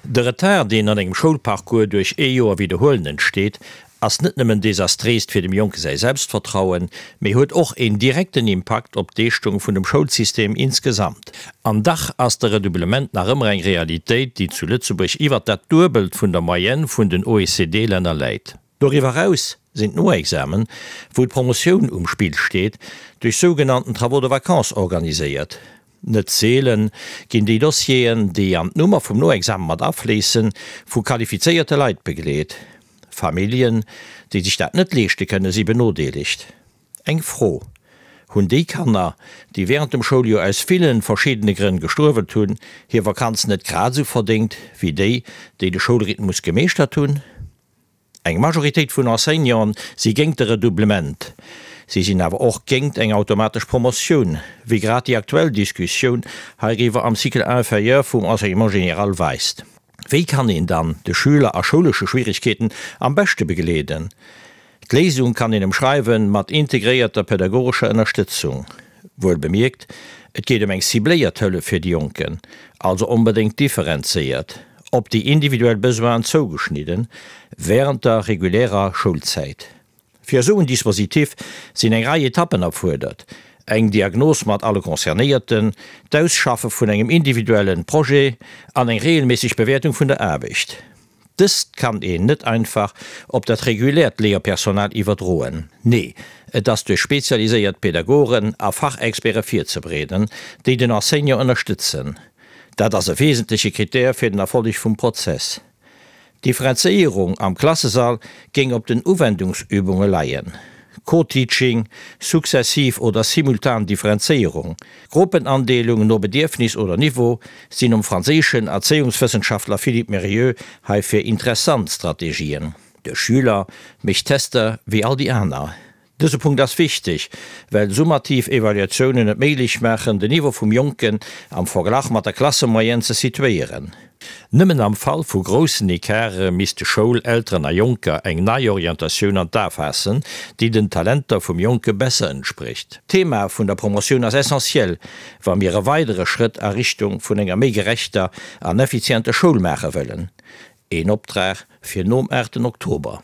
De Retard, deen an engem Schoulparcours duerch ee Joer Widderhuelen entsteet, ass net nëmmen desastréist fir dem Jonke säi Selbstvertrauen, mee huet och een direkten Impakt op d'Leeschtung vun dem Schoulsystem insgesamt. An dach ass de Redoublement nach ëmmer eng Realitéit, déi zu Lëtzebuerg iwwert dat Duebelt vun der Moyenne vun den OECD-Länner läit. Doriwwer eraus sinn d'Noexamen, wou d'Promotioun um Spill steet, duerch sougenannten Travaux de vacances organiséiert. Net seelen ginn déi Dossieren, déi an d'Nummer vum Noexame mat afléissen, vu qualifizéierte Leit begleet. Familljen, déi sech dat net leeschte kënnen, si benodeelegt. Eng Fro, Hunn déi Kanner, déi wärend dem Schouljoer aus villen verschiddene Grënn gestruewelt hunn, hir Vakanz net grad esou verdéngt wéi déi, déi de Schoulrhythmus gemeeschtert hunn? Eng Majoritéit vun Enseignanten si géingt de Redoublement. Si sinn awer och géingt eng automatesch Promotioun, wéi grad déi aktuell Diskussioun heiriwwer am Cycle inférieur vum Enseignement général weist. Wéi kann een dann de Schüler a schoulesche Schwierigkeeten am beschte begleeden? D'Léisung kann een emschreiwen mat integréierter pädagogescher Ënnerstëtzung. Wuel bemierkt, et geet ëm eng cibléiert Hëllef fir déi Jonken, also onbedéngt differenzéiert, op déi individuell Besoinen zougeschnidden, wärend der regulärer Schoulzäit. Fir esou en Dispositif sinn eng Rei Etappen erfuerdert, eng Diagnos mat alle Concernéierten, d'Ausschaffe vun engem individuellen Projet an eng reegelméisseg Bewäertung vun der Aarbecht. Dëst kann een net einfach op dat reguläert Léierpersonal iwwerdroen. Nee, et ass duerch spezialiséiert Pädagogen a Fachexperte virzebereeden, déi den Enseignant ënnerstëtzen. Dat ass e wesentleche Krittär fir den Erfolleg vum Prozess. D'Differenzéierung am Klassesall géing op den Uwendungsübunge leien. Co-Teaching, successiv oder simultan Differenzéierung, Gruppenandeelung no Bedierfnis oder Niveau sinn nom franséischen Erzéiungswëssenschaftler Philippe Mérieux heifir interessant Strategien. De Schüler mécht Tester wéi all déi aner. Dëse Punkt ass wichteg, well summativ Evaluatiounen et méiglech maachen, den Niveau vum Jonken am Verglach mat der Klassemoyenne ze situéieren. Nëmmen am Fall vu groussen Ecarte misste Schoul, Elteren a Jonker eng nei Orientatioun an d'A faassen, déi den Talenter vum Jonke besser entsprécht. D'Thema vun der Promotioun ass essentiell, wa mir e weidere Schrëtt a Richtung vun enger méi gerechter an effizienter Schoul maache wëllen. Een Optrag fir nom 8 Oktober.